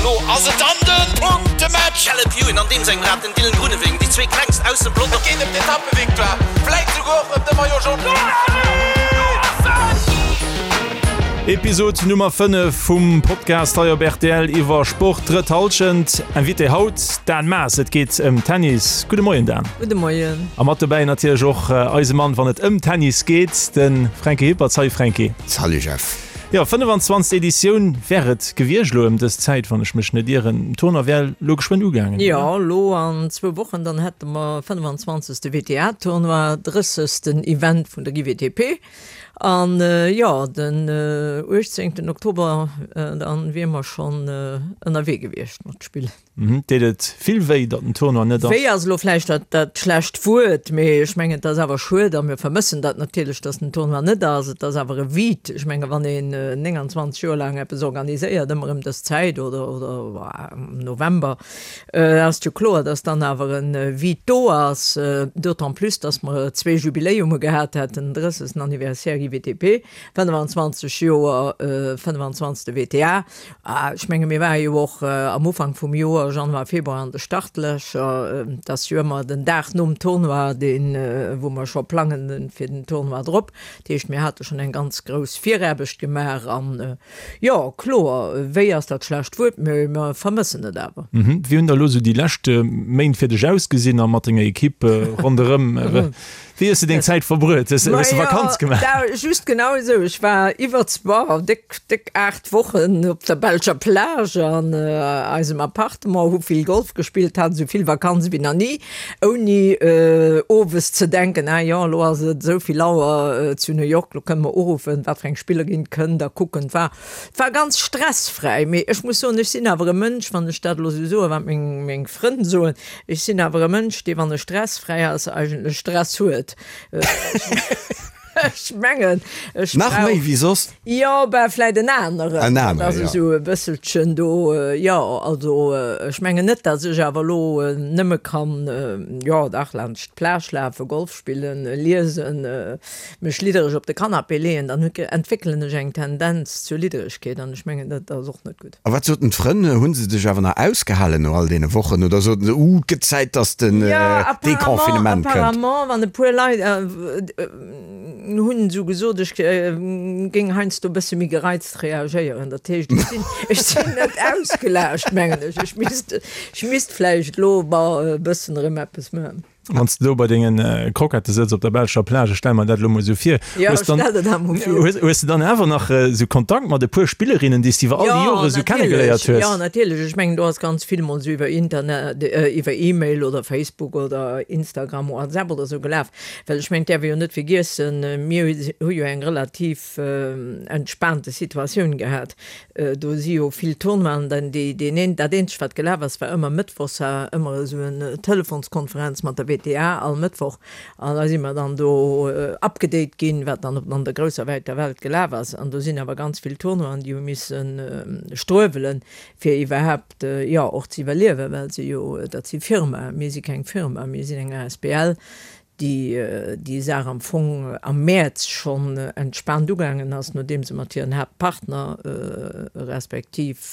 Elo ass et dann de Punktematch! Caleb Ewan an deem sengem Rad, den Dylan Groenewegen, déi zwee klengst aus dem Pelotong. Et geet ëm d'Etappevictoire, vläit souguer och ëm de Maillot Jaune. Episod Nummer 5 vum Podcast hei op rtl iwwer Sport, drëtt Hallschent. Invité haut, Dan Maas. Et geet ëm Tennis. Gudde Moien, Dan. Gudde Moien. A mat dobäi natierlech och eise Mann, wann et ëm Tennis geet, de Fränki Hippert. Salut Fränki. Salut Jeff. Jo, 25. Editioun wär et gewiescht elo ëm dës Zäit, wann ech mech net ieren. Den Tournoi wär elo geschwënn ugaangen, oder? Jo, elo an zwou Wochen, dann hätte mer 25. WTA-Tournoi, 30. Event vun der GWTP. An jo, den 18. Oktober, dann wier mer schonn ënnerwee gewiescht mat spillen. Deet et vill wéi, datt den Tournoi net ass? Wéi ass elo vläicht dat schlecht Wuert, mee ech mengen, et ass awer schued a mir vermëssen dat natierlech, datt den Tournoi net ass. Et ass awer e Vide. Ech menge wann een 29 Joer laang eppes organiséiert, ëmmer ëm dës Zäit oder am November, ass et jo kloer, datt dann awer e Vide do ass. D'autant plus, datt mer zwee Jubiläume gehat hätten, den 30. Anniversaire IWTP, 25 Joer 25. WTA. Ech menge mir ware jo och am Ufank vum Joer, Januar, Februar, an de Startlächer. Et ass jo ëmmer den Dag nom Tournoi, deen, wou mer scho plangen fir den Tournoi drop. Dat heescht, mir hate schonn eng ganz grouss Viraarbecht gemaach. An jo, kloer, wéi ass dat schlecht Wuert, mee mer vermëssen et awer. Wéi hunn da elo esou déi lescht Méint fir dech ausgesinn a mat denger Ekipp ronderëm? Wéi hues de deng Zäit verbruet? Hues de Vakanz gemaach? Ma jo, just genau esou. Ech war iwwer, boah, déck, déck 8 Wochen op der belscher Plage an eisem Appartement, hu vill Golf gespillt, hat esou vill Vakanz wéi nach ni, ouni owes ze denken, ah jo, elo ass et esou vill Auer zu New York, elo kënne mer uruffen, wat fir eng Spillerin kënnt a kucken. Et war, et war ganz stressfräi. Mee ech muss soen, ech sinn awer e Mënsch, wann ech dat elo esou soen, wat meng, meng Frënn soen, Ech sinn awer e Mënsch, dee wann e stressfräi ass, eigentlech Stress huet. Ech mengen, ech Nach méi wéi soss? Jo, ben vläit en aneren. En aneren, jo. Dat ass esou e bësselchen do, jo. Also ech mengen net, datt ech awer elo nëmme kann, jo dach, laanscht d'Plage lafen, Golf spillen, liesen, mech liddereg op de Canapé leeën, dann entwéckelen ech eng Tendenz zur Lidderegkeet an ech mengen, dat ass och net gutt. A wat soten d'Frënn? Hu se dech awer nach ausgehalen no all deene Wochen oder soten se, Uh, et gëtt Zäit, dass den Deconfinement kënnt? Jo, apparemment, wann e puer Leit hunn esou gesot, ech géing heiansdo e bësse méi gereizt reagéieren. Dat heescht, ech sinn, ech sinn net ausgelaascht, mengen ech. Ech misst, ech misst vläicht elo e bëssen erëm eppes maachen. Wann s de do bei dengen Croquette sëtz op der belscher Plage, ech stelle mer dat elo mol esou vir, hues dann, hues de dann awer nach esou Kontakt mat e puer Spillerinnen, déi s de iwwer all déi Jore esou kennegeléiert hues? Jo, natierlech. Ech mengen, do ass ganz vill mol esou iwwer Internet, iwwer E-Mail oder Facebook oder Instagram, WhatsApp oder esou gelaf. Well ech mengen, et däerf ee jo net vergiessen, mir hu jo eng relativ entspaante Situatioun gehat. Do si jo vill Tournoien, dann déi, deen een, dat eenzegt wat gelaf ass, war ëmmer mëttwochs war ëmmer esou en Telefonskonferenz mat der WTA all Mëttwoch an da si mer dann do upgedate ginn, wat dann op an der grousser wäiter Welt gelaf ass. An do sinn awer ganz vill Tournoien, déi hu misse struewelen, fir iwwerhaapt, jo, och ze iwwerliewen, well se jo, dat si Firmaen, mir si keng Firma, mir sinn eng asbl, déi déi Saach am Fong am Mäerz schonn entspaant ugaangen ass, nodeem se mat hiren Haaptpartner respektiv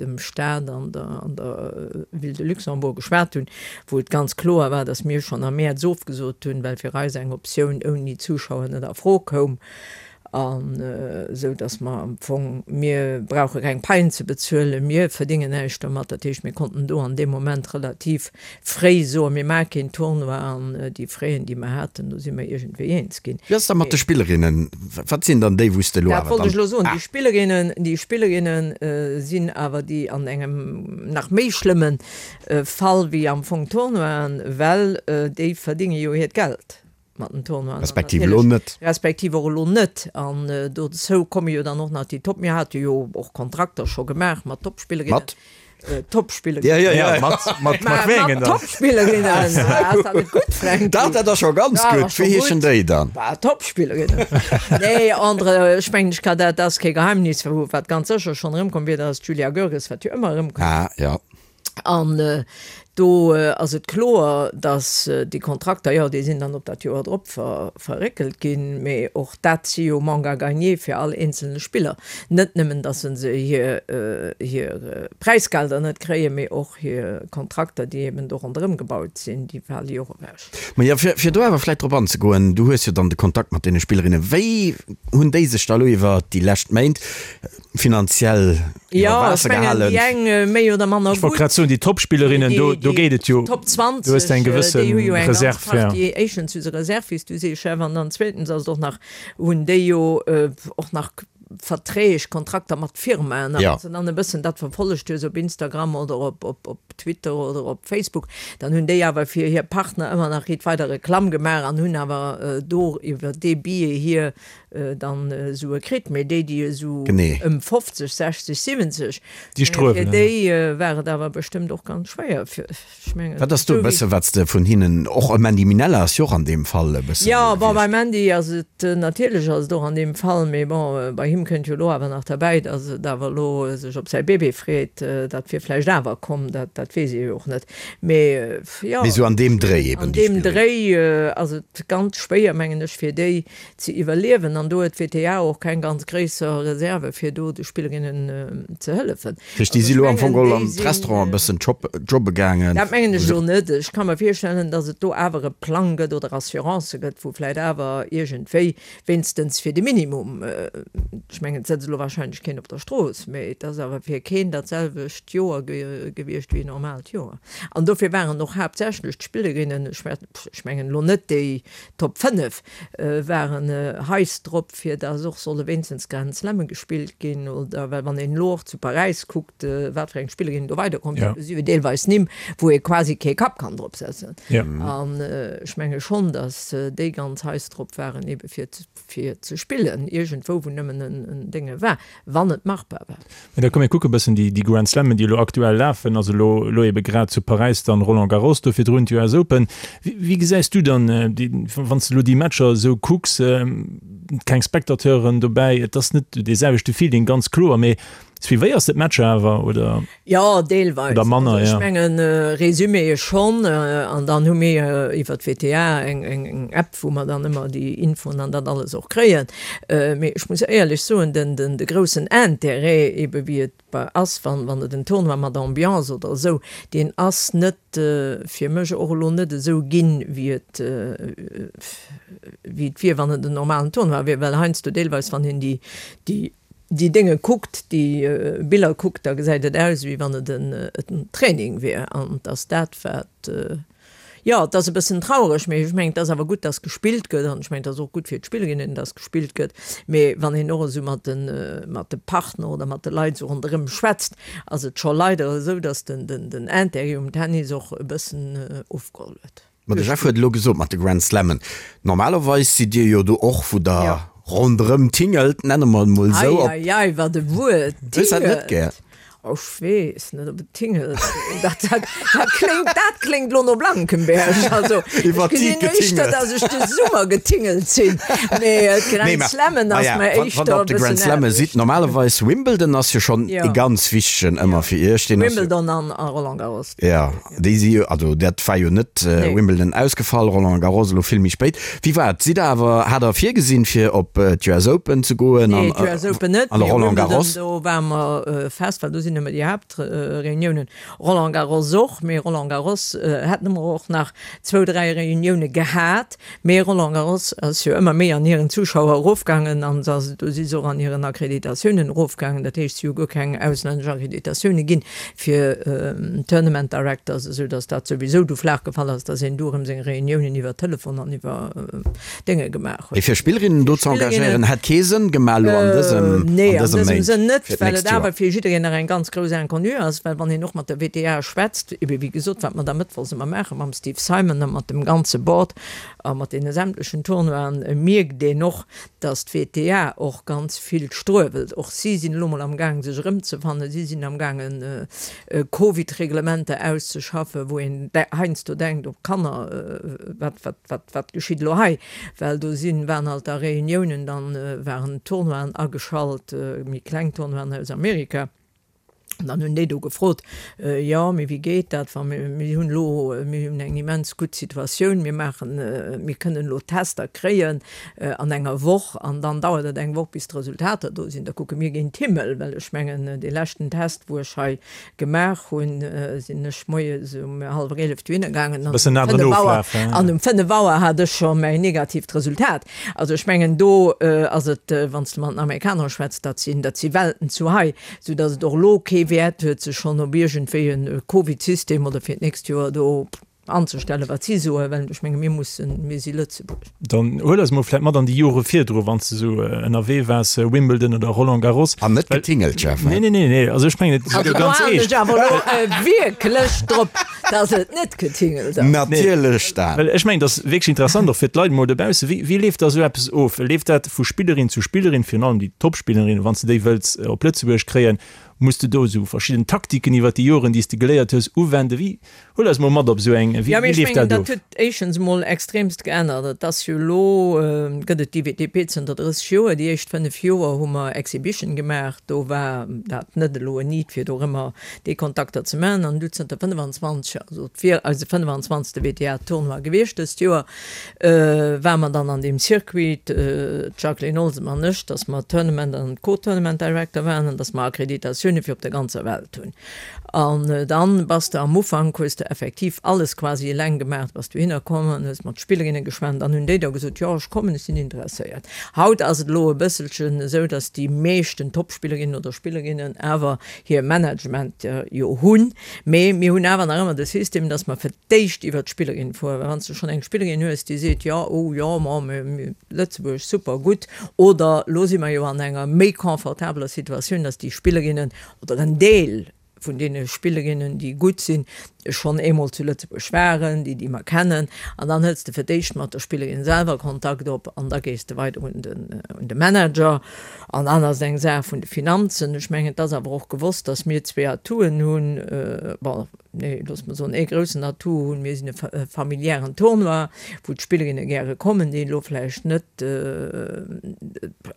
dem Staat an der an der Ville de Luxembourg geschwat hunn, wou et ganz kloer war, datt mir schonn am Mäerz ofgesot hunn, well fir eis eng Optioun ouni Zuschauer net a Fro koum. An esou datt mer am Fong, mir brauche keng Paien ze bezuelen, mir verdéngen näischt domat. Dat heescht, mir konnten do an deem Moment relativ fréi soen, mir maache keen Tournoi an déi Fräen, déi mer haten, do si mer iergendwéi eens ginn. Wéi ass da mat de Spillerinnen? Wat sinn dann déi, wou s de elo awer dann. Dat wollt ech elo soen. Déi Spillerinnen, déi Spillerinne sinn awer déi an engem nach méi schlëmme Fall wéi am Fong d'Tournoien, well déi verdénge jo hiert Geld. mat den Tournoien. Respektiv elo net. Respektiv och elo net. An dozou komme jo dann och nach déi Top, mir hate jo och Kontrakter scho gemaach mat Topspillerinnen. Mat? Topspillerinnen. Ja, ja, ja. Mat, mat, mat wéi engen dann? Topspillerinnen. Ass dat net gutt, Fränki? Dach, dat ass scho ganz gutt. Wéi heeschen déi dann? Bah, Topspillerinnen. Nee, André, ech mengen, ech ka dat, dat ass kee Geheimnis, wat ganz sécher schonn erëmkomm wier, dat ass d'Julia Görges, wat jo ëmmer erëmkënnt. Ah, ja. An. Do ass et kloer, datt déi Kontrakter, jo, déi sinn dann op dat Joer drop verréckelt ginn, mee och dat si jo Manque à gagner fir all eenzelne Spiller. Net nëmmen, datt se hir hir Präisgelder net kréien, mee och hir Kontrakter, déi eben do ronderëm gebaut sinn, déi fale jo och ewech. Ma jo, fir do awer vläicht drop anzegoen, du hues jo dann de Kontakt mat deene Spillerinnen. Wéi hunn déi sech da elo iwwer déi lescht Méint finanziell iwwer Waasser gehalen. Jo, ech mengen, déi eng méi oder manner gutt. Ech wollt grad soen, déi Top-Spillerinnen, do, do geet et jo. Déi Top 20, do hues de eng gewësse déi hu jo eng ganz Reserv, ja. Partie, éischtens hu se Reserv, wéi s du sees, Jeff, an dann zweetens ass et och nach, hunn déi jo och nach Verträg, Kontrakter mat Firmaen. A wann s de dann e bëssen dat verfollegt hues op Instagram oder op, op, op Twitter oder op Facebook, dann hunn déi awer fir hir Partner ëmmer nach riit weider Reklamm gemaach an hunn awer do iwwer dee Biais hir dann Sue kritt, mee déi, déi esou ëm 50, 60, 70, Déi fir déi war et awer bestëmmt och ganz schwéier. Ech mengen, Wat ass do e bësse wat s de vun hinnen, och e Mandy Minella ass jo och an deem Fall e bësse Jo, bon, beim Mandy ass et natierlech ass et och an deem Fall, mee bon, bei him kënnt jo elo awer nach derbäi, datt et awer elo sech op säi Bébé freet. Dat wier vläicht awer komm, dat dat weess ee jo och net. Mee jo, Mee esou an deem Dréi eben an deem Dréi ass et ganz schwéier, mengen ech, fir déi ze iwwerliewen an do huet d'WTA och keng ganz gréisser Reserve fir do de Spillerinnen ze hëllefen. Dat heescht, déi si elo am Fong geholl an d'Restauranten e bëssen jobbe gaangen? Dat mengen ech elo net. Ech ka mer virstellen, datt et do awer e Plang gëtt oder Assurancë gëtt, wou vläicht awer iergendwéi, wéinstens fir de Minimum, ech mengen et sëtzt elo wahrscheinlech keen op der Strooss, mee et ass awer fir keen dat selwecht Joer gewiescht wéi e normaalt Joer. An dofir waren och haaptsächlech d'Spillerinnen, ech mengen elo net déi Top 5, waren heiß drop fir dass och solle wéinstens Grand Slamme gespillt ginn oder well wann een elo och zu Paräis kuckt wat fir eng Spillerinnen do weiderkomm sinn, do si jo deelweis Nimm wou ee quasi kee Kapp kann drop setzen an ech menge schonn dass déi ganz heiß drop waren ebe fir fir ze spillen iergendwou wou nëmmen en Dénge war, wann et machbar war. Mä da komm mir kucke bëssen déi déi Grand Slammen, déi elo aktuell lafen, also elo elo ebe grad zu Paräis dann Roland Garros, do virdrun d'US Open. Wéi wéi gesäis du dann déi, wann s de elo déi Matcher esou kucks, keng Spectateuren dobäi, et ass net dee selwechte Feeling, ganz kloer, mee suivéiers de d'Matcher awer oder? Jo, deelweis. Oder manner, jo. Ech mengen, Resumé schonn. An dann hu mir iwwer d'WTA eng eng App, wou mer dann ëmmer déi Infoen an dat alles och kréien. Mee ech muss éierlech soen, den den de groussen Intérêt, ebe wéi et bei ass, wann wann et en Tournoi mat Ambiance oder esou, deen ass net fir mech och elo net esou ginn, wéi et wéi et wier, wann et en normalen Tournoi wier. Well heiansdo deelweis, wann een déi déi déi Dénge kuckt, déi Biller kuckt, da gesäit et aus, wéi wann et en Training wier. An et ass dat, wat, jo, et ass e bëssen traureg, mee ech mengen, et ass awer gutt, dass gespillt gëtt. An ech mengen, et ass och gutt fir d'Spillerinnen, dass gespillt gëtt. Mee wann een och esou mat de, mat de Partner oder mat de Leit esou ronderëm schwätzt, ass et scho leider esou, dass den, den Intérêt um Tennis och e bëssen ofgeholl huet. Ma de Jeff huet elo gesot mat de Grand Slammen, normalerweis sidd Dir jo do och, wou Der ronderëm tingelt, nenne mer et mol esou. Ei, ei, ei, wat e Wuert, Hues dat net gär? Oh, ech weess net, ob et tingelt. Dat, dat, dat kléngt, dat kléngt elo no Blankenberg. Also, ech gesinn éischter, datt ech de Summer getingelt sinn, mee d'Grand Slammen ass mer éischter e bëssen anescht. Wann Der op de Grand Slamme sidd, normalerweis, Wimbledon ass jo schonn e ganz wichtegen ëmmer fir Iech. Wimbledon an Roland Garros. Jo. Déi si jo, also dat war jo net Wimbledon ausgefall, Roland Garros elo vill méi spéit. Wéi war et? Sidd der awer, hat der virgesinn fir op d'US Open ze goen an Nee, d'US Open net, mee Roland Garros? Do ware mer fest, well do sinn ëmmer déi Haaptreuniounen. Roland Garros och, mee Roland Garros hätte mer och nach zwou, dräi Reunioune gehat. Mee Roland Garros ass jo ëmmer méi an hiren Zuschauer erofgaangen an do si se och an hiren Akkreditatiounen erofgaangen. Dat heescht, si hu guer keng auslännesch Akkreditatioune ginn fir Tournament Directors, esou datt dat souwisou du flaach gefall ass, datt een du erëm seng Reuniounen iwwer Telefon an iwwer Dénge gemaach huet. Mee fir Spillerinnen do ze engagéieren, hätt kee Sënn gemaach elo an dësem, Nee, an dësem Sënn net, well et awer fir jiddereen nach eng ganz grouss Inconnue ass, well wann een och mat der WTA schwätzt, ebe wéi gesot, wat mer da mëttwochs ëmmer maache mam Steve Simon a mat dem ganze Board a mat deene sämtlechen Tournoien, mierkt een och, datt d'WTA och ganz vill struewelt. Och si sinn elo mol am Gaang sech erëmzefannen, si sinn am gaangen Covid-Reglementer auszeschaffen, wou een heiansdo denkt, oh Kanner, wat, wat, wat, wat geschitt elo hei? Well do sinn, waren halt da Reuniounen, dann waren Tournoien ageschalt, méi kleng Tournoien aus Amerika. An dann hunn déi do gefrot, Jo, mee wéi geet dat, wa mir, mir hunn elo, mir hunn eng immens gutt Situatioun, mir maachen, mir kënnen elo Tester kréien an enger Woch an dann dauert et eng Woch, bis d'Resultater do sinn. Da kucke mir géint d'Himmel, well ech mengen, dee leschten Test, wou ech hei gemaach hunn, sinn ech moies um hallwer 11 dohinner gaangen an um 5 Auer, an um 5 Auer hat ech scho mäin negatiivt Resultat. Also ech mengen, do ass et, wann s de mat den Amerikaner schwätz, dat sinn, dat si Welten zu hei. Sou dass et och elo kee Wäert huet, sech schonn op iergendwéi e Covid-System oder fir d'nächst Joer do anzestellen, wat si soen, well ech menge mir mussen, mir si Lëtzebuerg. Dann huel eis mol vläit mat an déi Jore virdru, wann s de esou ënnerwee waars, Wimbledon oder Roland Garros. An net getingelt, Jeff, he? Nee, nee, nee, nee, also ech mengen, et ass Also do ganz halen eescht. ech awer elo wierklech drop, dass et net getingelt ass. Natierlech, Dan. Well ech mengen, et ass wierklech interessant och fir d'Leit emol dobaussen, wéi, wéi leeft da esou eppes of? Leeft dat vu Spillerin zu Spillerin, virun allem déi Topspillerinnen, wann s de déi wëlls op Lëtzebuerg kréien, muss de do esou verschidden Taktiken iwwer déi Joren, déi s de geléiert hues, uwenden? Wéi, huel eis mol mat op esou eng, wéi Jo, mee ech leeft mengen, dat dat of? huet éischtens emol extremst geännert. Et ass jo elo, gëtt et d'IWTP zënter 30 Joer. Déi éischt 5 Joer hu mer Exhibition gemaach, do war dat net elo en Need, fir dorëmmer déi Kontakter ze maachen. An du zënter 25, also et wier eise 25. WTA-Tournoi gewiescht dëst Joer, Ware mer dann an deem Circuit, d'Jacqueline Olsem an ech, dass mer Tournament an Co-Tournament Director waren an dass mer Akkreditatioune fir op der ganzer Welt hunn. An dann bass de am Ufank, hues de effektiv alles quasi eleng gemaach, bass dohinner komm an hues mat Spillerinne geschwat an dann hunn déi der gesot, jo ech kommen, ech sinn interesséiert. Haut ass et elo e bësselchen esou, dass déi meeschten Topspillerinnen oder Spillerinnen awer hir Management jo hunn, mee mir hunn awer nach ëmmer de System, dass mer fir d'éischt iwwer d'Spillerin fueren, well wann s de schonn eng Spillerin hues, déi seet, jo, oh jo, ma Lëtzebuerg, super, gutt, oder elo si mer jo an enger méi confortabeler Situatioun, dass déi Spillerinnen oder en Deel vun deene Spillerinnen, déi gutt sinn, schonn eemol zu Lëtzebuerg waren, déi déi mer kennen, an dann hëls de fir d'éischt mat der Spillerin selwer Kontakt op an da gees de weider un den, un de Manager. An dann ass et eng Saach vun de Finanzen. Ech mengen, et ass awer och gewosst, dass mir zwee Atouen hunn, bon, Nee, looss mer soen, ee groussen Atout hunn. Mir sinn e familiären Tournoi, wou d'Spillerinne gäre kommen, déi elo vläicht net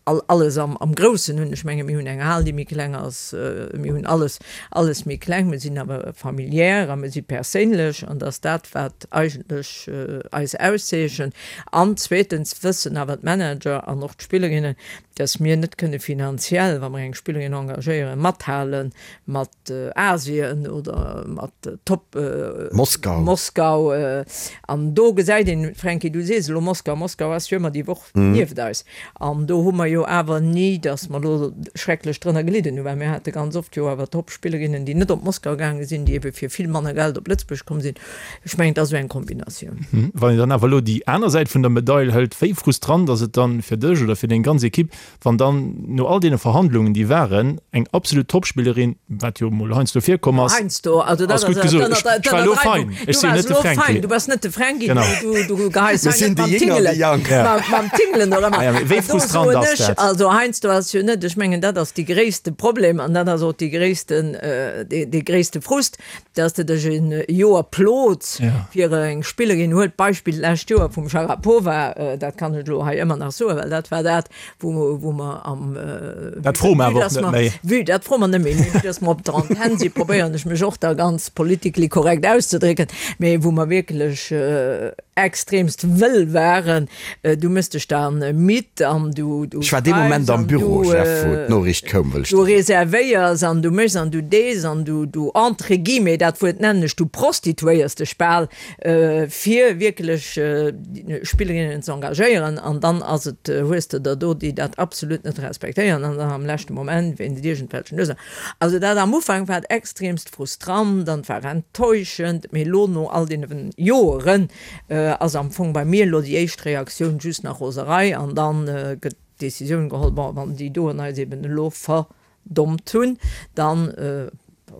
alles am Groussen hunn. Ech menge mir hunn eng Hal, déi méi kleng ass, mir hunn alles, alles méi kleng. Mir sinn awer familiär a mir si perséinlech an dat ass dat, wat eigentlech eis auszeechent. An zweetens wëssen awer d'Manager an och d'Spillerinnen, dass mir net kënne finanziell, wa mer eng Spillerin engagéieren, mathale mat Asien oder mat Top Moskau. Moskau. An do gesäit een, Franky, du sees elo Moskau, Moskau ass jo ëmmer déi Woch nieft eis. An do hu mer jo awer ni, datt mer elo schrecklech drënner gelidden hunn, well mir hate ganz oft jo awer Top-Spillerinnen, déi net op Moskau gaange sinn, déi ebe fir vill manner Geld op Lëtzebuerg komm sinn. Ech mengen, et ass esou eng Kombinatioun. Wann een dann awer elo déi aner Säit vun der Medail hëlt, wéi frustrant ass et dann fir dech oder fir deng ganz Ekipp, Wann dann no all deene Verhandlungen, déi waren, eng absolut Topspillerin, wat jo mol heiansdo virkomm ass, Heiansdo, also dat ass gutt gesot, ech ech war elo fein, ech sinn jo net de Fränki. Du bass net de Fränki, du du geheis Mir hei sinn net déi mam Jénger, Tingelen, déi Jank. mam Tingelen oder Ah ja, mee wéi do frustrant soen ass ech, dat? also heiansdo ass jo net, ech mengen dat ass déi gréisste Problem an dat ass och déi gréissten, dee gréisste Frust, dass de dech e Joer plots fir eng Spillerin, huel d'Beispill d'lescht Joer vum Sharapova, dat kann ech elo hei ëmmer nach soen, well dat war dat, wou wou mer am Dat froe mer awer och net méi. Vue, dat froe mer net méi, mee vue dass mer op der Antenn sinn, probéieren ech mech och da ganz politically correct auszedrécken, mee wou mer wierklech extremst wëll waren, du méchs dech da midd an du du Ech war dee Moment schreifs am an Büro, du Jeff, wou d'Noriicht koum, wëll ech du der soen. reservéiers an du méchs an du dees an du du entre guillemets, dat Wuert nennen ech, du prostituéiers dech bal fir wierklech Spillerinnen ze engagéieren an dann ass et, hues de der do, déi dat absolut net respektéieren an dann am leschte Moment wéinst iergendwelchen Ursachen. Also dat am Ufank war et extremst frustrant an et war enttäuschend, mee elo no all deene Joeren ass am Fong bei mir elo déi éischt Reaktioun just nach Roserei an dann gëtt d'Decisioun geholl, bon, wann déi doen eis eben elo ver Dommt hunn, dann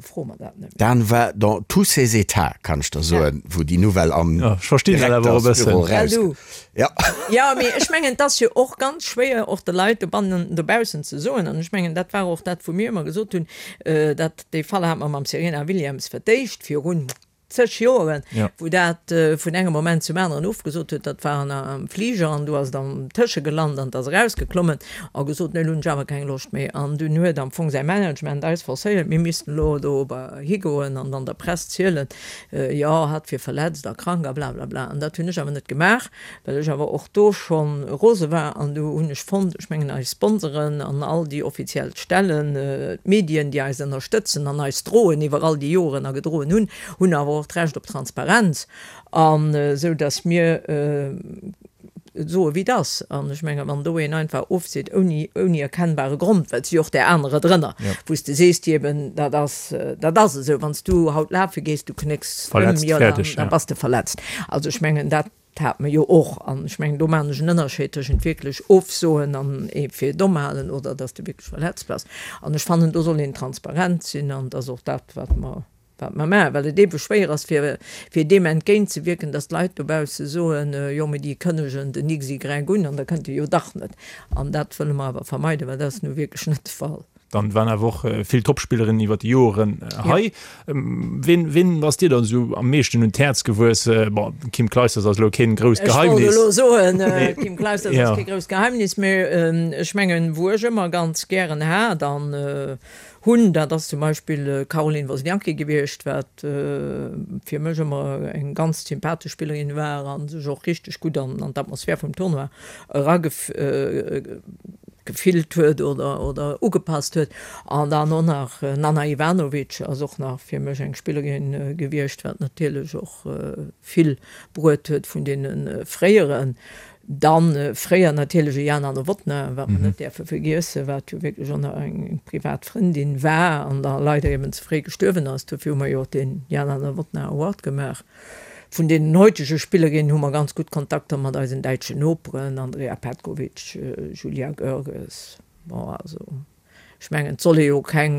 froe mer dat net méi. Dan war dans tous ses états, kann ech der soen, wou déi Nouvelle am Ja, ech verstinn dat awer och e Direktersbüro bëssen. Well rauskoum. du. Ja. Jo, mee ech mengen, et ass jo och ganz schwéier, och de Leit dobannen, dobaussen ze soen, an ech mengen, dat war och dat, wou mir ëmmer gesot hunn, dat, dee Fall hate mer mam Serena Williams fir d'éischt virun. zeg Joeren, wou dat vun engem Moment zum aneren ofgesot huet. Dat war am Fliger an do ass et am Tësche gelant an et ass erausgeklommen a gesot, nee, elo hunn ech awer keng Loscht méi. An dunn huet am Fong säi Management eis forcéiert, mir missten elo do higoen an dann der Press zielen, jo, hatt wier verletzt a krank a blablabla. An dat hunn ech awer net gemaach, well ech awer och do scho rose war. An du hunn ech fonnt, ech mengen eis Sponsoren an all déi offiziell Stellen, d'Medien, déi eis ënnerstëtzen an eis droen iwwer all déi Joren a gedroen hunn, hunn awer och d'Recht op Transparenz, an esou datt mir et soe wéi et ass. An ech mengen, wann do een einfach ofseet ouni, ouni erkennbare Grond, well et si jo och där anerer drënner, wou s de sees, déi eben, dat ass, dat ass esou, wann s du haut lafe gees, du knécks ëm, jo, da bass de verletzt. Also ech mengen, dat hat mer jo och. An ech mengen, do maachen ech en Ënnerscheed tëschent wierklech ofsoen an ee fir domm halen oder dass de wierklech verletzt bass. An ech fannen, do soll een transparent sinn an et ass och dat, wat mer, wat mer maachen, well et eebe schwéier ass, fir, fir deem entgéintzewierken, dass d'Leit dobausse soen, jo, mee déi kënnegen den XY un an da kënnt e jo dach net. An dat wëlle mer awer vermeiden, well dat ass nu wierklech net de Fall. Dann waren awer och vill Topspillerinnen iwwer déi Joren hei. Ween, ween ass dir dann esou am meeschten un d'Häerz gewuess? Bon, Kim Clijsters ass elo keen grousst Geheimnis. Ech wollt elo soen, Kim Clijsters ass kee grousst Geheimnis, mee ech mengen, wou ech ëmmer ganz gären hat an hunn, dat ass zum Beispill d'Caroline Wozniacki gewiescht, wat fir mech ëmmer eng ganz sympathesch Spillerin war a sech och richteg gutt an d'Atmosphär vum Tournoi eragef. Gefillt huet oder oder ugepasst huet. An dann och nach Nana Ivanovic ass och nach fir mech eng Spillerin gewiescht, wat natierlech och vill bruet huet vun deene fréieren. Dann fréier natierlech e Jana Novotná, wat mer net däerfe vergiessen, wat jo wierklech och nach eng privat Frëndin war an da leider eben ze fréi gestuerwen ass. Dofir hu mer jo och dee Jana Novotná Award gemaach. Vun deenen heutege Spillerinnen hu mer ganz gutt Kontakter mat eisen däitschen Noperen, Andrea Petkovic, Julia Görges. Bon, also ech mengen, et soll ee jo keng,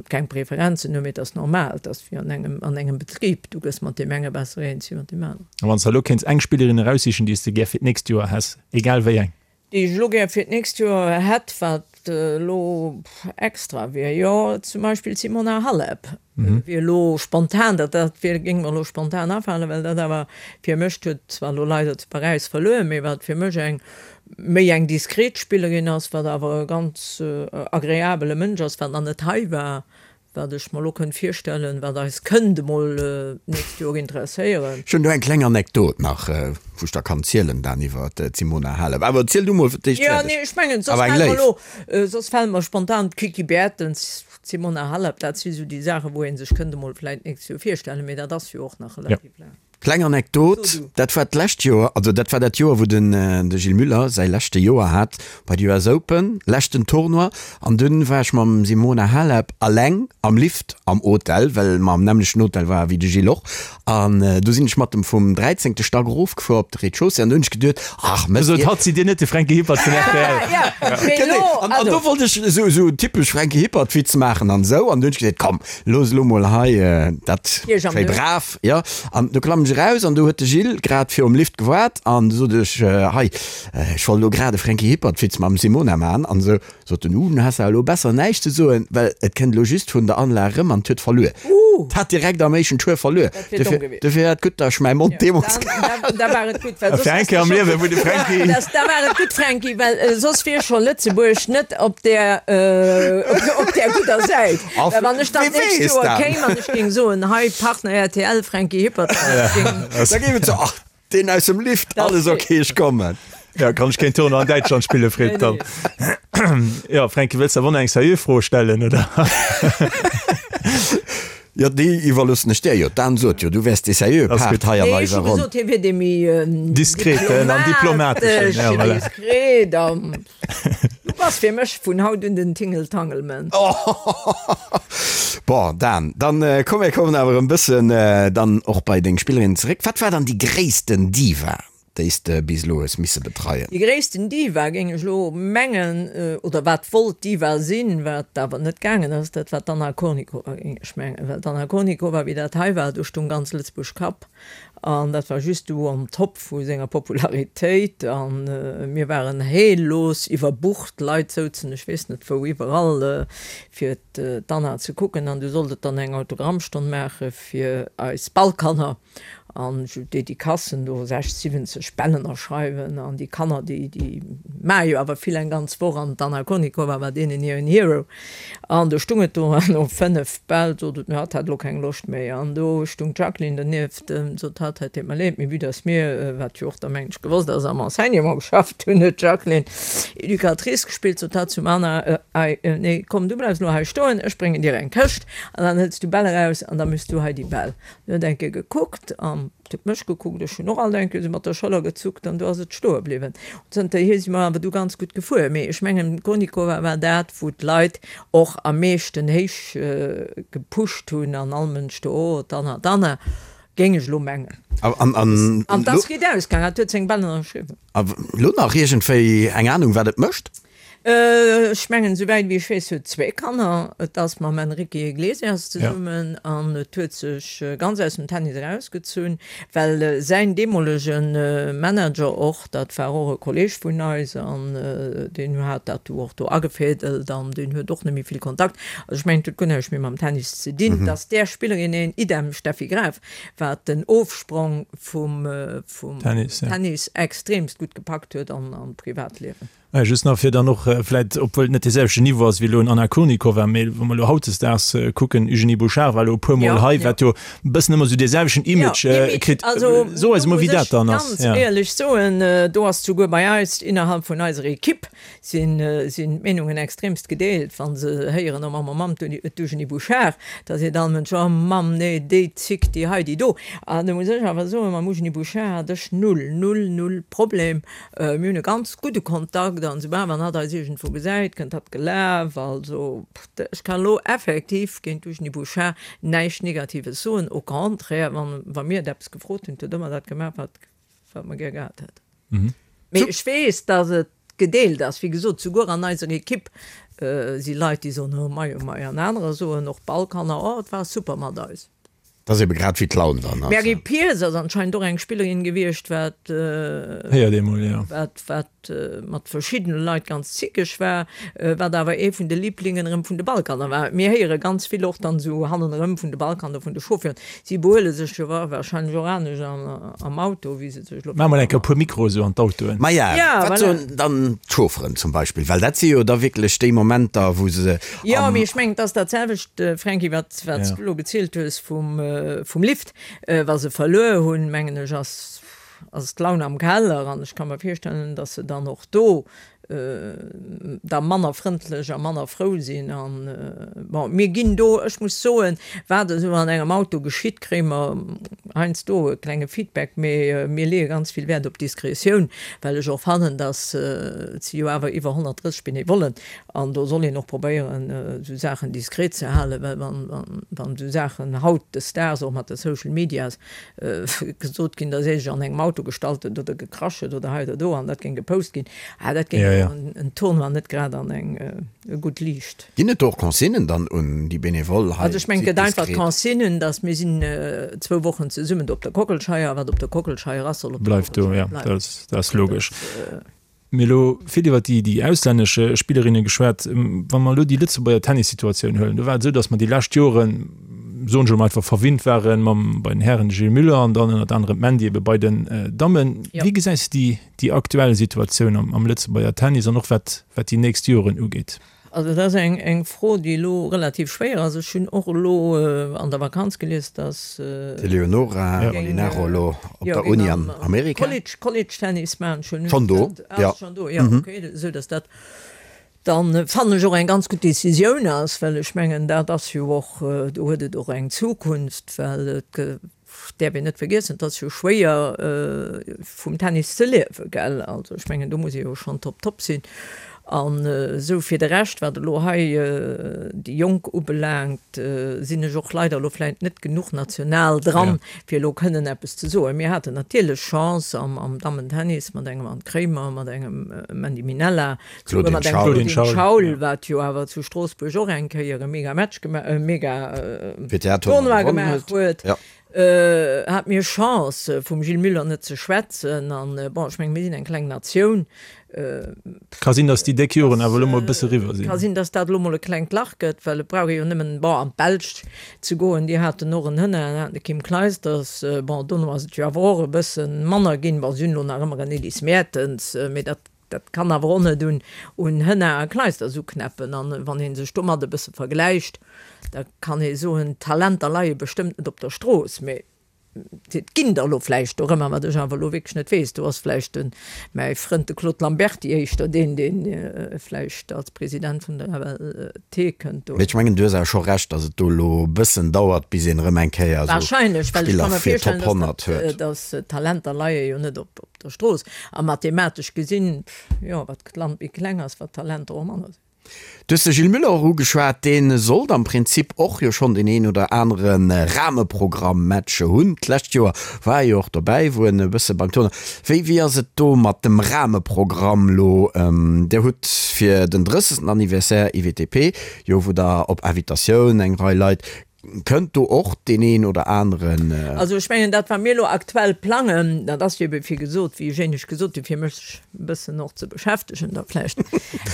keng Preferenzen hunn, mee et ass normal, et ass wéi an engem, an engem Betrib, du gëss mat deem enge besser eens wéi mat deem aneren. A wann s de elo kéints eng Spillerin eraussichen, déi s de gär fir d'nächst Joer häss, egal wéi eng? Déi ech elo gär fir d'nächst Joer hätt, wat elo extra wier, jo zum Beispill d'Simona Halep wier elo spontan, dat dat wier, géing mer elo spontan afalen, well dat awer fir mech, huet zwar elo leider zu Paräis verluer, mee wat fir mech eng méi eng diskret Spillerin ass, wat awer e ganz agreabele Mënsch ass, wat nach net hei war, Wat ech mer elo kënnt virstellen, wat eis kënnt emol d'nächst Joer interesséieren. Ech hunn do eng kleng Anekdot nach, wou ech der kann zielen dan iwwer d'Simona Halep. Awer ziel du mol fir d'éischt fäerdeg. Jo, nee, ech mengen, soss fält mer elo, soss fält mer spontan d'Kiki Bertens, d'Simona Halep, dat si sou déi Saachen, wou ee sech kënnt emol vläicht d'nächst Joer virstellen, mee dat ass jo och nach relativ laang. Kleng Anekdot, dat war d'lescht Joer, also dat war dat Joer wou den de Gilles Muller säi leschte Joer hat bei de US Open, leschten Tournoi, an dunn war ech mam Simona Halep alleng am Lift am Hotel, well mer am nämmlechten Hotel ware wéi de Gilles och, an du sinn ech mat em vum dräizéngte Stack erofgefuer op de Rez-de-chaussée an du hunn ech geduet, ach mëss Sot hatt, sidd Dir net de Franky Hippert vun rtl? Genee, an do wollt ech esou esou typesch Franky Hippert Witz maachen an esou, an du hunn ech gesot, komm looss elo mol hei dat schéi brav. Jo, an du klammen ech eraus an du huet de Gilles grad virum Lift gewaart an du sot ech, hei, ech wollt elo grad e Franky Hippert-Witz mam Simona man an esou. Sot en, uh, du has awer elo besser näischt ze soen, well et kënnt elo just vun der Anlag erëm an 't huet verluer. 't hat direkt am éischten Tour verluer. Dofir, dofir war et gutt, datt ech mäi Mond deemools gehalen hunn. Da war et gutt, well soss Fir eng Kéier am Liewen, wou de Franky. Da war et gutt, Franky, well soss wier scho Lëtzebuerg net op där, op där gudder Säit. Well wann ech dann d'nächst Joer kéim an ech géing soen, hei Partner rtl, Franky Hippert, da géif et soen, ach deen aus dem Lift, alles ok, ech kommen. Ja, kann ech keen Tournoi an Däitschland spillen, freet dann. Jo, Franky, wëlls de awer och nach eng seriö Fro stellen, oder? Jo, déi iwwerloossen ech där jo. D'Anne sot jo, du wäers dee seriöe Part hei an eiser Ronn. Nee, ech hu gesot, hie wier dee méi diskreten an diplomateschen. Ja, voilà. Diskret an Du bass fir mech vun haut un den Tingeltangelman. Bon, Dan, dann komm mir kommen awer en bëssen dann och bei deng Spillerinnen zeréck. Wat war dann déi gréissten Diva? déi s de bis elo hues misse betreien? Déi gréissten Diva, géing ech elo mengen, oder wat wollt Diva sinn, wat awer net gaangen ass, dat war d'Anna Kournikova, géing ech mengen. Well d'Anna Kournikova, wéi dat hei war, do stung ganz Lëtzebuerg Kapp. An dat war just du on top vu senger Popularitéit. A mir waren heellos iwwerbucht, Leit souzen ech weess net wou iwwerall, fir d'Anna ze kucken. An du sollt et dann eng Autogrammstonn maache fir eis Ballkanner. An esou Dedicacen do, 60, 70 Bäll ënnerschreiwen. An déi Kanner, déi, déi maache jo awer vill eng ganz Woch. An d'Anna Kournikova war deenen hiren Hero. An do stung et do, an no 5 Bäll sot et, hatt hätt elo keng Loscht méi. An do stung d'Jacqueline donieft, sot hatt, et deet mer leed, mee vue dass mir, wat jo och da mengen ech gewosst ass, am Enseignement geschafft hunn, huet d'Jacqueline Educatrice gespillt, sot hatt zum Anna, Ei, nee, komm, du bleifs elo hei stoen, ech bréngen dir eng Këscht an dann hëls du Bäll eraus an da méchs du hei déi Bäll. En huet eng Kéier gekuckt an huet mech gekuckt, ech hunn och alt eng Kéier esou mat der Schëller gezuckt an du ass et stoe bliwwen. Zënterhier si mer awer du ganz gutt gefuer. Mee ech mengen, d'Kournikova war dat, wou d'Leit och am meeschten héich gepusht hunn an all Mënsch do, oh, d'Anna, d'Anna, géing ech elo mengen. An et ass gutt ausgaangen, hatt huet seng Bäll ënnerschriwwen. A lo nach iergendwéi eng Anung, wat et mécht? Ech mengen, souwäit wéi ech weess, huet zwéi Kanner. Et ass mam Enrique Iglesias zesummen an et huet sech ganz aus dem Tennis erausgezunn, well säin deemolege Manager och, dat war och e Kolleeg vun eis an deen hat dat du och do agefädelt an deen huet och net méi vill Kontakt. Also ech mengen, et huet guer näischt méi mam Tennis ze dinn. Dass där Spillerin een, idem Steffi Graf, wat den Ofsprong vum Tennis extremst gutt gepackt huet an am Privatliewen. Just nach fir dann och vläit, obwuel et net dee selwechten Niveau ass wéi elo en Anna Kournikova, mee wa mer elo hautdesdaags kucken, Eugénie Bouchard war elo e puer Mol hei, wat jo e bëssen ëmmer esou dee selwechten Image kritt. So eis emol, wéi dat dann ass. Also do muss ech ganz éierlech soen, do ass souguer bei eis, innerhalb vun eiser Equipe, sinn d'Meenungen extremst gedeelt. Wa se héieren, oh Mamm, oh Mamm, d'Eugénie Bouchard, da seet all Mënsch, oh Mamm, nee, déi Zick, déi hei, déi do. An do muss ech awer soen, mam Eugénie Bouchard hat ech null, null, null Problem. Mir hunn e ganz gudde Kontakt an soubal wann hatt eis iergendwou gesäit, kënnt hatt gelaf. Also ech kann elo effektiv géint d'Eugénie Bouchard näischt Negatives soen. Au contraire, wann wa mir et eppes gefrot hunn, huet ëmmer dat gemaach, wat wat mer gär gehat hätten. Mee ech weess, datt et gedeelt ass. Wéi gesot, souguer an eiser Ekipp si Leit, déi soen, oh mei, oh mei, an anerer soen, och Ballkanner, oh et war super mat eis. Dat ass ebe grad wéi d'Laun dann ass. D'Mary Pierce ass anscheinend och eng Spillerin gewiescht, wat Héiert ee mol, jo. wat wat mat verschiddene Leit ganz zickeg war, wat awer ee vun de Liblingen erëm vun de Ballkanner war. Mir héiere ganz vill och dann esou hannenerëm vun de Ballkanner, vun de Chauffeuren. Si behuele sech jo warscheinlech och anescht am Auto, wéi se sech elo. Maache mol eng Kéier e puer Mikroe sou an d'Autoen. Maja, wat soen dann d'Chaufferen zum Beispill? Well dat si jo da wierklech déi Momenter, wou se Jo, mee ech mengen, et ass dat selwecht, Franky, wat wat s du elo gezielt hues vum, vum Lift, wa se verluer hunn, mengen ech, ass, ass d'Laun am Keller. An ech ka mer virstellen, datt se dann och do da manner frëndlech a manner frou sinn. An, bon, mir ginn do, ech muss soen, wat esou an engem Auto geschitt, kréie mer heiansdo e klenge Feedback, mee mir leeë ganz vill Wäert op Diskretioun, well ech och fannen, datt, et si jo awer iwwer 130 Benevollen, An do soll een och probéieren, esou Saachen diskret ze halen, well wann esou Saachen hautdesdaags och mat de Social Medias gesot ginn, da seet ech, an engem Auto gestallt huet oder gekrasch huet oder hei oder do an dat géing gepost ginn, ah dat géing jo en Tournoi net grad an eng gutt Liicht. Ginn et do och Consignen dann un déi Benevole hei? Also ech mengen, et gëtt einfach d'Consignen, datt mir sinn zwou Wochen zesummen do op der Kockelscheier, wat op der Kockelscheier ass, soll op der Kockelscheier bleiwen. Bleift do, jo, dat ass logesch. Mir elo vill iwwer déi, déi auslännesch Spillerinne geschwat. Wa mer elo déi Lëtzebuerger Tennissituatioun huelen, do war et esou, datt mer déi lescht Joren, soen ech elo mol einfach, verwinnt ware mam, bei den Hären de Gilles Muller an dann ënnert anerem d'Mandy ebe bei den Dammen. Wéi gesäis de déi, déi aktuell Situatioun am, am Lëtzebuerger Tennis an och wat, wat déi nächst Joren ugeet? Also dat ass eng eng Fro, déi elo relativ schwéier ass. Ech hunn och elo an der Vakanz gelies, datt D'Eleonora Molinaro elo op der Uni an Amerika. College, College Tennis maachen. Schonn Schonn do, jo. Schonn do, jo, okay. Esou datt dat dann, fannen ech, och eng ganz gutt Decisioun ass, well ech mengen, dat ass jo och, do huet et och eng Zukunft, well et däerf een net vergiessen, et ass jo schwéier vum Tennis ze liewen, gell. Also ech mengen, do muss ee jo schonn top top sinn. An esou fir de Rescht, wat elo hei déi Jonk ubelaangt, sinn ech och leider elo vläicht net genuch national dran, fir elo kënnen eppes ze soen. Mir haten natierlech Chance am Dammentennis mat engem Anne Kremer, mat engem Mandy Minella, souguer mat engem Claudine Schaul, wat jo awer zu Stroossbuerg och eng Kéier e mega Match gemaach, e mega Tournoi gemaach huet. Hat mir Chance, vum Gilles Muller net ze schwätzen. An, bon, ech mengen, mir sinn eng kleng Natioun. Ka sinn, datt déi déck Joren awer elo mol e bësse eriwwer sinn. Ka sinn, datt dat elo mol e klengt Lach gëtt, well et brauch ee jo nëmmen, bon, an d'Belsch ze goen. Déi haten och en Hënner, haten de Kim Clijsters. Bon, dono ass et jo awer och e bësse manner ginn. Bon, si hunn elo nach ëmmer en Elise Mertens, mee dat Dat kann awer och net un un Hënna a Clijsters uknäppen. An wann ee sech domat e bësse vergläicht, da kann ee soen, d'Talenter leie bestëmmt net op der Strooss, mee et ginn der elo vläicht dorëmmer, wat ech awer elo wierklech net weess. Do ass vläicht de mäi Frënd, de Claude Lamberty, éischter deen, dee vläicht als President vun der FLT kënnt do. Mee ech mengen, du hues awer scho Recht, datt et do elo e bëssen dauert, bis een erëm eng Kéier esou Wahrscheinlech, well ech ka Spiller mer fir virstellen, Top 100 datt huet. datt d'Talenter leie jo net op der Strooss. A mathematesch gesinn, jo, wat d'Land méi kleng ass, wat d'Talenter och manner sinn. Du hues de Gilles Muller och ugeschwat, dee sollt am Prinzip och jo schonn deen een oder anere Rahmeprogramm-Match hunn. D'lescht Joer war e jo och dobäi, wou en e bësse beim Tournoi. Wéi, wéi ass et do mat dem Rahmeprogramm lo? Dir hutt fir den 30. Anniversaire IWTP jo, wou der op Invitatioun eng Rei Leit Kënnt do och deen een oder aneren? Also ech mengen, dat wat mir elo aktuell plangen, dat ass jo ebe wéi gesot, wéi ech éinescht gesot hunn, fir mech e bëssen och ze beschäftegen da vläicht.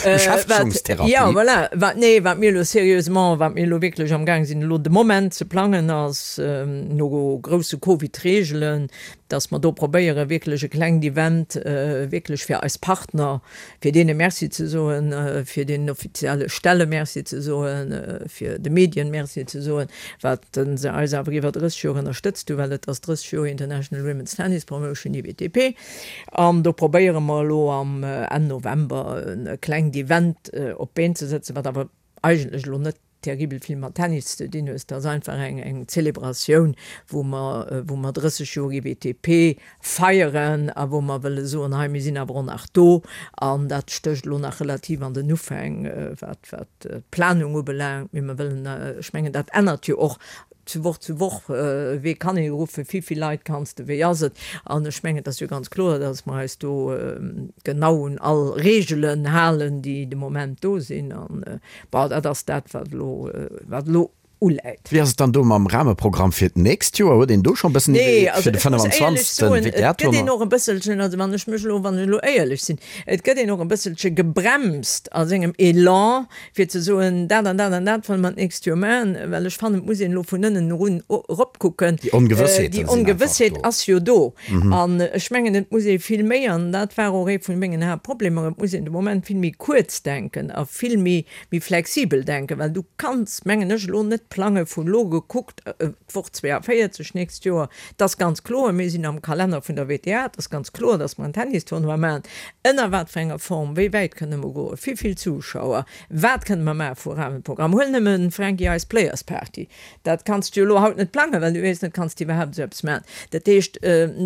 Beschäftegungstherapie. Jo, voilà. Wat, nee, wat mir elo sérieusement, wat mir elo wierklech amgaang sinn elo de Moment ze plangen, ass no grousse Covid-Reegelen, dass mer do probéiere wierklech e klengt Event wierklech fir eis Partner, fir deene Merci ze soen, fir deenen offizielle Stelle Merci ze soen, fir de Medien Merci ze soen, wat se eis awer iwwer 30 Joer ënnerstëtzt hunn, well et ass 30 Joer International Women's Tennis Promotion, IWTP. An do probéiere mer elo am Enn November e klengt Event op d'Been ze sëtzen, wat awer eigentlech elo net terribel vill mat Tennis ze dinn hues. Dat ass einfach eng eng Zelebratioun, wou mer wou mer 30 Joer IWTP feieren a wou mer wëlle soen, hei mir sinn awer och nach do. An dat stécht elo nach relativ an den Ufäng, wat wat d'Planung ubelaangt. Mee mer wëllen, ech mengen dat ännert jo och zu Woch zu Woch, wee kann ee ruffen, wéi vill Leit kanns de, wéi ass et? An ech mengen, et ass jo ganz kloer, datt mer eis do genau un all Reegelen halen, déi de Moment do sinn. An bon, dat ass dat, wat elo, wat elo uläit. Wéi ass et dann do mam Rahmeprogramm fir d'nächst Joer? Huet een do scho e bëssen Nee, Iwwerleet also fir de ech muss éierlech 25. soen, et gëtt een WTA-Tournoi? och e bësselchen, also wann ech mech elo, wann ech elo éierlech sinn, et gëtt een och e bësselche gebremst a sengem Elan, fir ze soen, dat an dat an dat wëlle mer d'nächst Joer maachen, well ech fannen, et muss een elo vun ënnen erun eropkucken. Déi Ongewëssheeten Déi sinn einfach Ongewëssheet do. ass jo do. An ech mengen, et muss ee vill méi, an dat war och ee vun mengen Haaptproblemer, et muss een de Moment vill méi kuerz denken a vill méi, méi flexibel denken, well du kanns, mengen ech, elo net plange vun elo gekuckt, d'Woch 42 nächst Joer, et ass ganz kloer, mir sinn am Kalenner vun der WTA, et ass ganz kloer, datt mer en Tennistournoi maachen. Ënner wat fir enger Form, wéi wäit kënne mer goen, wéi vill Zuschauer, wat kënne mer maache vu Rahmenprogramm? Huel nëmmen, Franky, eis Players Party, dat kanns du jo elo haut net plangen, well du weess net, kanns de iwwerhaapt esou eppes maachen? Dat heescht,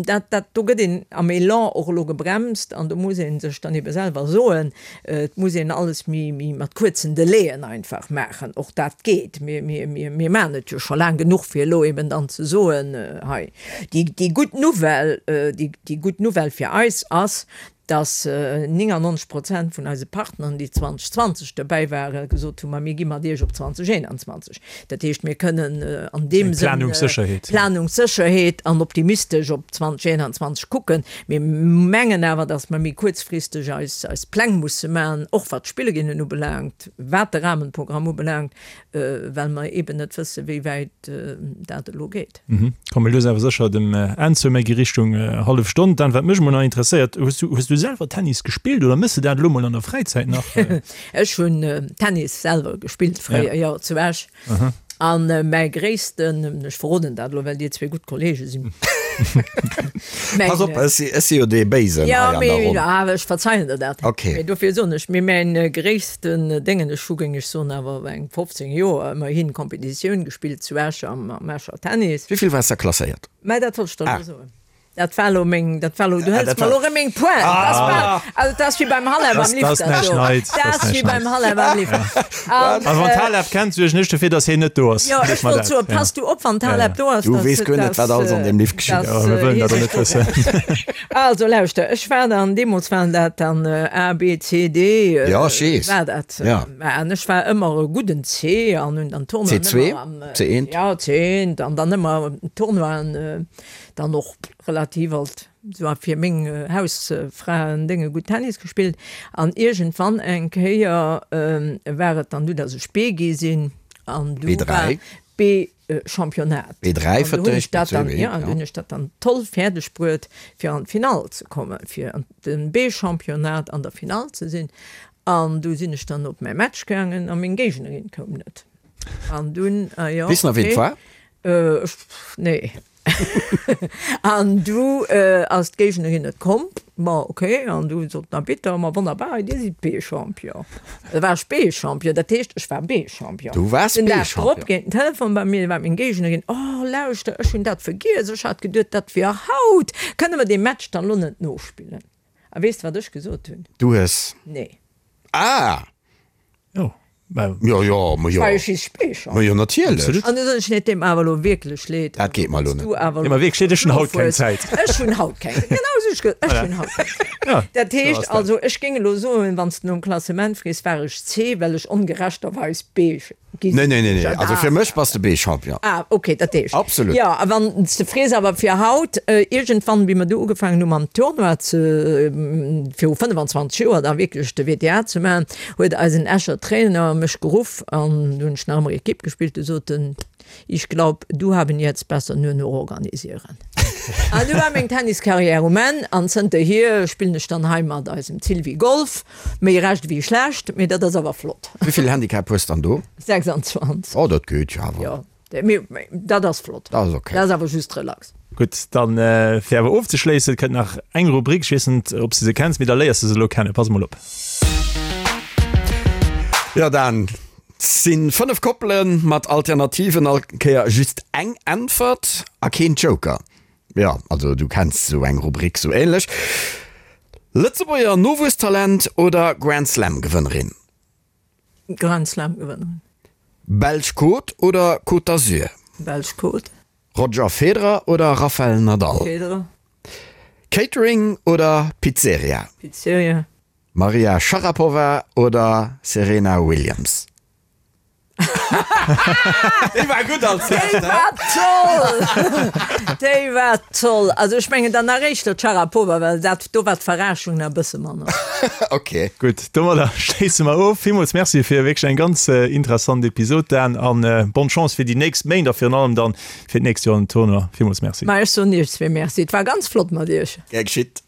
dat, dat, do gëtt een am Elan och elo gebremst an do muss ee sech dann ebe selwer soen, Et muss een alles méi, méi mat kuerzen Delaien einfach maachen. Och dat geet. Mir, mir, mir, mir maachen et jo scho laang genuch, fir elo eben dann ze soen, hei, déi, déi gutt Nouvelle, déi, déi gutt Nouvelle fir eis ass, dass 99 Prozent vun eise Partneren, déi 2020 dobäi waren, gesot hunn, ma mir gi mat Iech op 2021. Dat heescht, mir kënnen an deem Sënn Planungssécherheet. Planungssécherheet an optimistesch op 2021 kucken. Mir mengen awer, dass mer méi kuerzfristeg eis eis Pläng musse maachen, och wat d'Spillerinnen ubelaangt, wat de Rahmenprogramm ubelaangt, well mer eeben net wëssen, wéi wäit dat elo geet. Komme lues awer sécher dem Enn zou, méi gi Richtung hallef Stonn. Dan, wat mech emol nach interesséiert, hues du, hues du selwer Tennis gespillt oder méchs de dat elo mol an der Fräizäit nach? Ech hunn Tennis selwer gespillt fréier, jo, zu Esch. An mäi gréissten, ech verroden dat elo, well dir zwee gutt Kollege sinn. Pass op, ech si, ech si jo dee Béisen hei an der Ronn. Jo, mee ech verzeien der dat. Okay. Mee dofir soen ech, mee mäin gréissten Déngen, ech hu, géing ech soen, awer eng 15 Joer ëmmerhin Competitioun gespillt zu Esch am, am Escher Tennis. Wéi vill waars de klasséiert? Mä dat wollt ech der elo soen. Dat war lo meng, dat war lo, du hëls mer lo rëm meng Pointe. Dat ass bal, also dat ass wéi beim Halef am Lift. Dat ass näischt Neits. Dat ass wéi beim Halef am Lift. A wann d'Halef kennt, suergen ech dofir, datt hien net do ass. Jo, ech wollt soen, pass du op, wann d'Halef do ass. Du weess guer net, wat alles an deem Lift geschitt. Jo, mir wëllen dat och net wëssen. Also lauschter, ech war dann, deemools waren dat dann A, B, C, D. Jo, ech weess. War dat. Jo. An ech war ëmmer e gudden C an hunn dann Tournoien ëmmer am. C2, C1. Jo, C1 an dann ëmmer Tournoien. Dann och relativ alt sou fir meng Hausfraen-Dénge gutt Tennis gespillt. An iergendwann eng Kéier war et dann du, datt ech B gi sinn an du war B-Championnat. B3 An du hunn ech dat dann, jo, an du hunn ech dat dann toll fäerdeg bruet fir an d'Finall ze kommen, fir an de B-Championnat an der Finall ze sinn. An du sinn ech dann op mäi Match gaangen a meng Géignerin koum net. An dunn, ah jo, Weess nach ween et okay. war? Ech, nee. An du ass d'Géignerin net komm. Ma ok, an du sot den Arbitter, ma wonnerbar, dir sidd B-Champion. Da war ech B-Champion, dat heescht, ech war B-Champion. Du waars Den Dag drop B-Champion. geet den Telefon bei mir, war meng Géignerin, Oh, lauschter, ech hunn dat vergiess, ech hat geduet, dat wier haut. Kënne mer dee Match dann elo net nospillen? A weess de, wat ech gesot hunn? Du hues. Nee. Ah! Jo, mä. Jo, jo, ma jo. War jo just Speecher. Ma jo, natierlech. Absolut. An du soen ech, nee, et deet mer awer elo wierklech leed. Dat geet mer elo Wann net. du awer Nee, ma wierklech leed, ech hunn haut keng Zäit. Ech hunn haut keng Zäit. Genau esou hu ech gesot, ech hunn haut keng Zäit. Ja, Dat sou heescht ass dat. also, ech géing elo soen, wann s de nom Klassement frees, war ech C, well ech ongerechterweis B Gi Nee, nee, nee, nee. Also fir mech bass de B-Champion. Ah, okay, dat heescht. Absolut. Jo, a wann s de frees, awer fir haut, iergendwann, wéi mer du ugefaangen hu mam Tournoi ze, viru 25 Joer da wierklech de WTA ze maachen, huet eisen Escher Trainer mech geruff an du hunn ech nach ëmmer Equipe gespillt, du sot en, Ich glaub, du haben jetzt besser nur noch organisieren. An du war meng Tenniskarriär um Enn an zënterhier spillen ech dann hei mat eisem Sylvie Golf. Méi recht ewéi schlecht, mee dat ass awer flott. Wéivill Handicap hues dann do? 26. Oh, dat geet jo awer. Jo, mee dat ass flott. Dat ass ok. Dat ass awer just relax. Gutt, dann fir awer ofzeschléissen, kënnt nach eng Rubrik. Ech weess net, ob s de se kenns, mee da léiers de se elo kennen. Pass emol op. Jo, Dan, sinn 5 Koppelen mat Alternativen, all Kéier just eng Äntwert a keen Joker. Jo, also du kenns sou eng Rubrik sou ähnlech. Lëtzebuerger Nowuesstalent oder Grand Slam Gewënnerin? Grand Slam Gewënnerin. Belsch Côte oder Côte d'Azur? Belsch Côte. Roger Federer oder Rafael Nadal? Federer. Catering oder Pizzeria? Pizzeria. Maria Sharapova oder Serena Williams? Déi war gutt als Déi war toll! Déi war toll! Also ech mengen dann nach éischter d'Sharapova, well dat do war d'Verraschung nach e bësse manner. Ok. Gutt, domadder schléisse mer of. Villmools Merci fir wierklech eng ganz interessant Episod, Dan, an bonne Chance fir déi nächst Méint a virun allem dann fir d'nächst Joer an den Tournoi. Villmools Merci. Ma ech soen iech zwee Merci. Et war ganz flott mat iech. Gär geschitt.